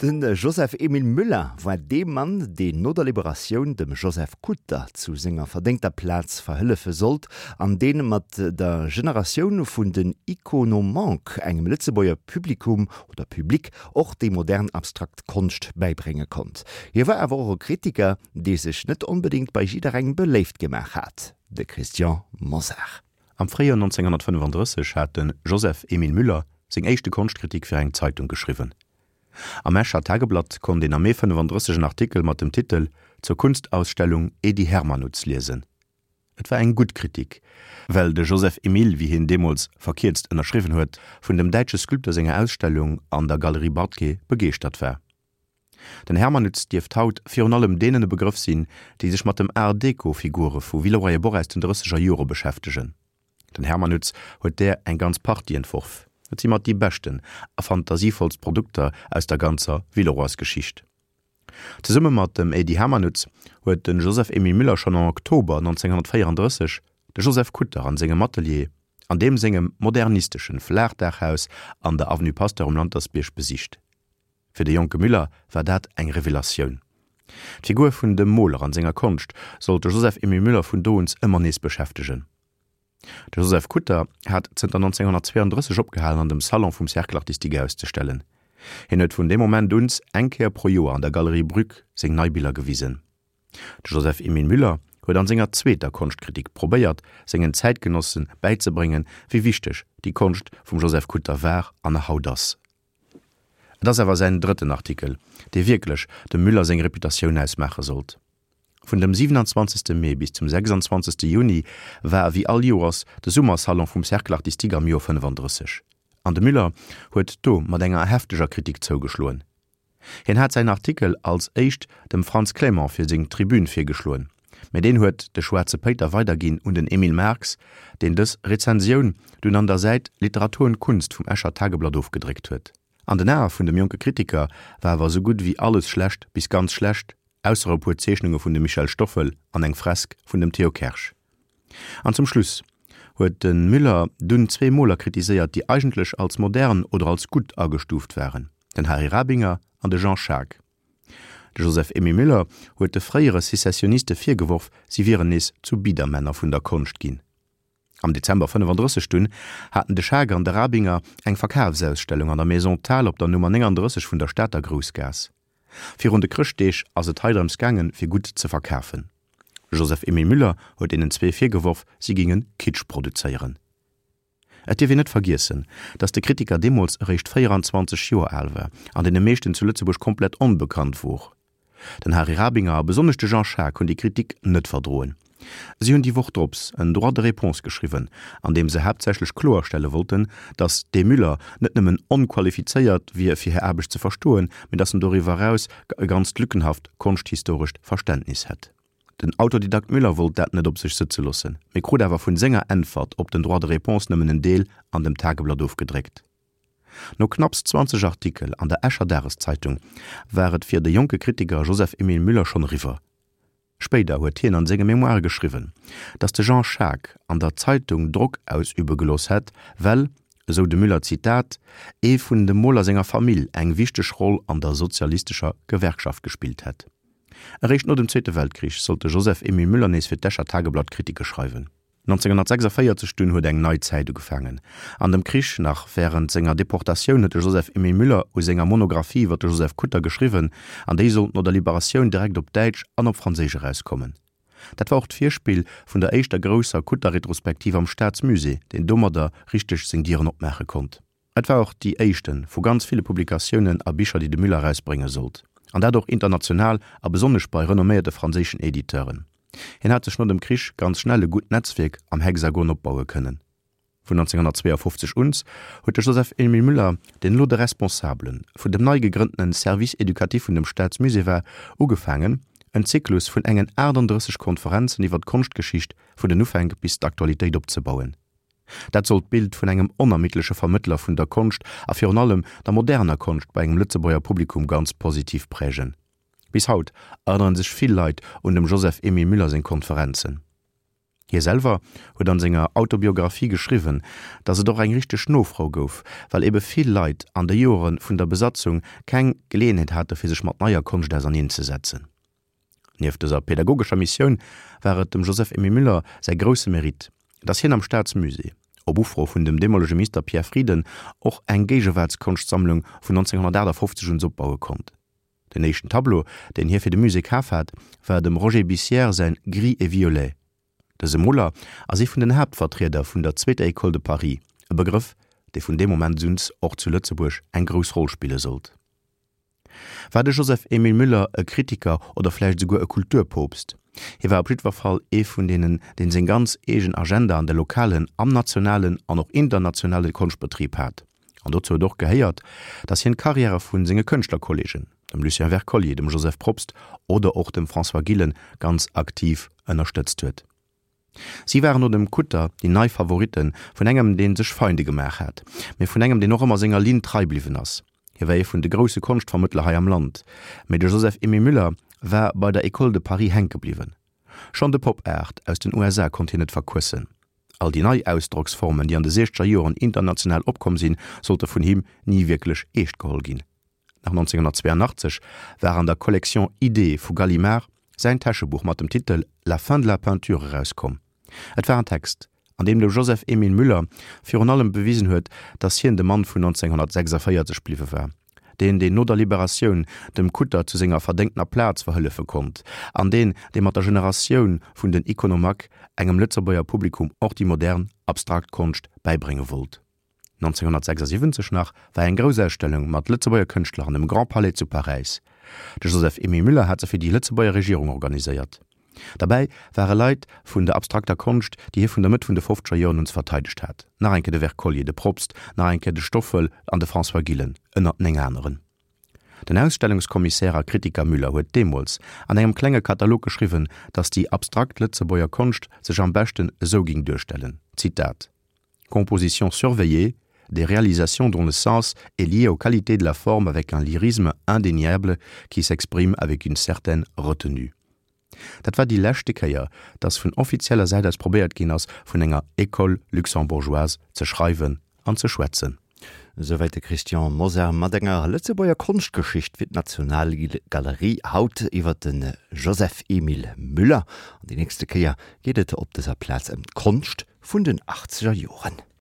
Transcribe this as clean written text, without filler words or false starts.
De Joseph Emile Müller war dee Mann, deen no der Liberatioun dem Joseph Kutter zu senger verdéngter Plaz verhëllefe sollt an dee mat der Generatioun vun den Iconomanques engem Lëtzebuerger Publikum oder Public och déi modern abstrakt Konscht bäibrénge konnt. Hie war awer och e Kritiker, dee sech net onbedéngt bei jidderengem beléift gemaach hat, de Christian Mosar. Am Fréijoer 1935 hat de Joseph Emile Müller seng éischte Konschtkritik fir eng Zeitung geschriwwen. Am Escher Tageblatt konnt een am Mee 35 en Artikel mat dem Titel Zur Kunstausstellung Edy Hermanutz liesen. Et war eng gutt Kritik, well de Joseph Emile, wéi hien deemools verkierzt ënnerschriwwen huet, vun dem däitsche Sculpteur senger Ausstellung an der Galerie Bartke begeeschtert war. Den Hermanutz dierft haut virun allem deenen e Begrëff sinn, déi sech mat dem Art-Deco-Figure vu Villeroy-et-Boch aus den drësseger Jore beschäftegen. Den Hermanutz huet där eng ganz Partie entworf. Et si mat déi beschten a fantasievollst Produkter aus der ganzer Villeroys-Geschicht. Zesumme mat dem Edy Hermanutz huet de Joseph-Émile Müller schonn am Oktober 1934 de Joseph Kutter an sengem Atelier an deem sengem modernisteschen Flaachdaachhaus an der Avenue Pasteur um Lantersbierg besicht. Fir de jonke Müller war dat eng Revelatioun. D'Figur vun dem Moler an senger Konscht sollt de Joseph-Émile Müller vun do uns ëmmer nees beschäftegen. De Joseph Kutter hat zënter 1932 opgehalen an dem Salon vum Cercle artistique auszestellen. Hien huet vun deem Moment uns eng Kéier pro Joer an der Galerie Brück seng nei Biller gewisen. De Joseph-Émile Müller huet an senger zweeter Konschtkritik probéiert, sengen Zäitgenosse bäizebréngen, wéi wichteg déi Konscht vum Joseph Kutter war an nach haut ass. Et ass awer säin drëtten Artikel, dee wierklech dem Müller seng Reputatioun ausmaache sollt. Vun dem 27. Mee bis zum 26. Juni war ewéi all Joers de Summersalon vum Cercle artistique am Joer 35, an de Müller huet do mat enger hefteger Kritik zougeschloen. Hien hat säin Artikel als éischt dem Frantz Clément fir seng Tribün virgeschloen, mä deen huet de Schwaarze Péiter weiderginn un den Emile Marx, deen dës Rezensioun dunn an der Säit Literatur und Kunst vum Escher Tageblatt ofgedréckt huet. An den Ae vun dem jonke Kritiker war awer esou gutt ewéi alles schlecht bis ganz schlecht, ausser e puer Zeechnunge vun dem Michel Stoffel an eng Fresk vun dem Theo Kersch. An zum Schluss huet de Müller dunn zwee Moler kritiséiert, déi eigentlech als modern oder als gutt agestuuft waren, den Harry Rabinger an de Jean Schaack. De Joseph-Emile Müller huet de fréiere Secessioniste virgeworf, si wieren nees zu Biedermänner vun der Konscht ginn. Am Dezember 35 dunn haten de Schaack an de Rabinger eng Verkafsausstellung an der Maison Thiel op der Nummer 39 vun der Stater Groussgaass. Virun de Chrëschtdeeg ass et hei drëms gaangen, fir gutt ze verkafen. Joseph-Emile Müller huet deenen zwee virgeworf, si géinge Kitsch produzéieren. Et dierf een net vergiessen, datt de Kritiker deemools eréischt 24 Joer al war an deene meeschten zu Lëtzebuerg komplett onbekannt wor. Den Harry Rabinger a besonnesch de Jean Schaack hunn déi Kritik net verdroen. Si hunn déi Woch drops en Droit de réponse geschriwwen, an deem se haaptsächlech kloerstelle wollten, datt dee Müller net nëmmen onqualifizéiert wier fir hir Aarbecht ze verstoen, mee datt en doriwwer eraus e ganzt lückenhaft konschthistorescht Verständnis hätt. Den Autodidakt Müller wollt dat net op sech sëtze loossen, mee krut awer vun senger Äntwert op den Droit de réponse nëmmen en Deel an dem Tageblatt ofgedréckt. No knapps 20 Artikel an der Escher Dageszeitung war et fir de jonke Kritiker Joseph-Emile Müller schonn eriwwer. Spéider huet hien an senge Memoire geschriwwen, datt de Jean Schaack an der Zeitung Drock ausübe gelooss hätt, well, esou de Müller, Zitat, ee vun dem Moler senger Famill eng wichteg Roll an der sozialistescher Gewerkschaft gespillt hätt. Eréischt no dem Zweete Weltkrich sollt de Joseph-Emile Müller nees fir d'Escher Tageblatt Kritike schreiwen. 1946 dunn huet eng nei Zäit ugefaangen. An dem Krich, nach wärend senger Deportatioun, huet de Joseph-Emile Müller u senger Monographie iwwer de Joseph Kutter geschriwwen, an déi sollt no der Liberatioun direkt op Däitsch an op Franséisch erauskommen. Dat war och d'Virspill vun der éischter grousser Kutter-Retrospektiv am Staatsmusée, deen domadder richteg seng Dieren opmaache konnt. Et war och déi éischte vu ganz ville Publikatiounen a Bicher, déi de Müller erausbrénge sollt, an dat och international a besonnesch bei renomméierte franséischen Editeuren. Hien hat sech no dem Krich ganz schnell e gutt Netzwierk am Hexagon opbaue kënnen. Vun 1952 uns huet de Joseph-Emile Müller, deen elo de Responsabele vun dem nei gegrënntene Service éducatif vun dem Staatsmusée war, ugefaangen, en Zyklus vun engen 38 Konferenzen iwwer d'Konschtgeschicht vun den Ufänk bis d'Aktualitéit opzebauen. Dat sollt d'Bild vun engem onermiddleche Vermëttler vun der Konscht a virun allem der moderner Konscht bei engem Lëtzebuerger Publikum ganz positiv prägen. Bis haut erënnere sech vill Leit un dem Joseph-Emile Müller seng Konferenzen. Hie selwer huet an senger Autobiographie geschriwwen, datt et och eng richteg Nofro gouf, well ebe vill Leit an de Joere vun der Besatzung keng Geleeënheet hate fir sech mat neier Konscht auserneen ze setzen. Nieft dëser pedagogescher Missioun war et dem Joseph-Emile Müller säi grousse Mérite, datt hien am Staatsmusée, op Ufro vun dem deemolege Minister Pierre Frieden, och eng Géigewaartskonschtsammlung vun 1958 un opbaue konnt. Den éischten Tableau, deen hie fir de Musée kaf hat, war dem Roger Bissière säin Gris et violet. Dëse Moler ass ee vun den Haaptvertrieder vun der zweeter École de Paris, e Begrëff, dee vun deem Moment un och zu Lëtzebuerg eng grouss Roll spille sollt. War de Joseph-Émile Müller e Kritiker oder vläicht esouguer e Kulturpoopst? Hie war op jiddwer Fall ee vun deenen, deen seng ganz eegen Agenda an de lokalen, am nationalen an och internationale Konschtbetrib hat. An dozou huet och gehéiert, datt hien d'Karriäre vu senge Kënschtlerkolleegen, dem Lucien Wercollier, dem Joseph Probst oder och dem François Gillen, ganz aktiv ënnerstëtzt huet. Si waren no dem Kutter déi nei Favoritte vun engem, dee sech Feinde gemaach hat, mee vun engem, deen och ëmmer senger Linn trei bliwwen ass. Hie war ee vun de grousse Konschtvermëttler hei am Land, mee de Joseph-Émile Müller war bei der École de Paris hänke bliwwen. Schonn de Pop Art aus den USA konnt hien net verquëssen. All déi nei Ausdrocksformen, déi an de siechzeger Joren international opkomm sinn, sollte vun him ni wierklech eescht geholl ginn. Nach 1982 war an der Collection Idées vu Gallimard säin Täschebuch mat dem Titel La fin de la peinture erauskomm. Et war en Text, an deem de Joseph-Émile Müller virun allem bewisen huet, datt hien de Mann vun 1946 bliwwe war, deen, deen no der Liberatioun dem Kutter zu senger verdéngtener Plaz verhëllefe konnt, an deen, dee mat der Generatioun vun den Iconomaques engem Lëtzebuerger Publikum och déi modern, abstrakt Konscht bäibrénge wollt. 1976 nach war eng grouss Ausstellung mat Lëtzebuerger Kënschtler an dem Grand Palais zu Paräis. De Joseph-Emile Müller hat se fir déi Lëtzebuerger Regierung organiséiert. Derbäi ware Leit vun der abstrakter Konscht, déi hie vun der Mëtt vun de fofzeger Joren un verteidegt hat, nach eng Kéier de Wercollier, de Probst, nach eng Kéier de Stoffel an de François Gillen, ënnert 9 aneren. Den Ausstellungskommissär a Kritiker Müller huet deemools an engem klenge Katalog geschriwwen, datt déi abstrakt Lëtzebuerger Konscht sech am beschten esou ging duerstellen, Zitat, Composition surveillée, des réalisations dont le sens est lié aux qualités de la forme avec un lyrisme indéniable qui s'exprime avec une certaine retenue. Dat war déi leschte Kéier, datt vun offizieller Säit aus probéiert ginn ass, vun enger École luxembourgeoise ze schreiwen an ze schwätzen. Esouwäit de Christian Mosar mat enger Lëtzebuerger Konschtgeschicht fir d'Nationalgalerie, haut iwwer de Joseph-Emile Müller. An déi nächste Kéier geet et op dëser Plaz ëm d'Konscht vun den achtzeger Joren.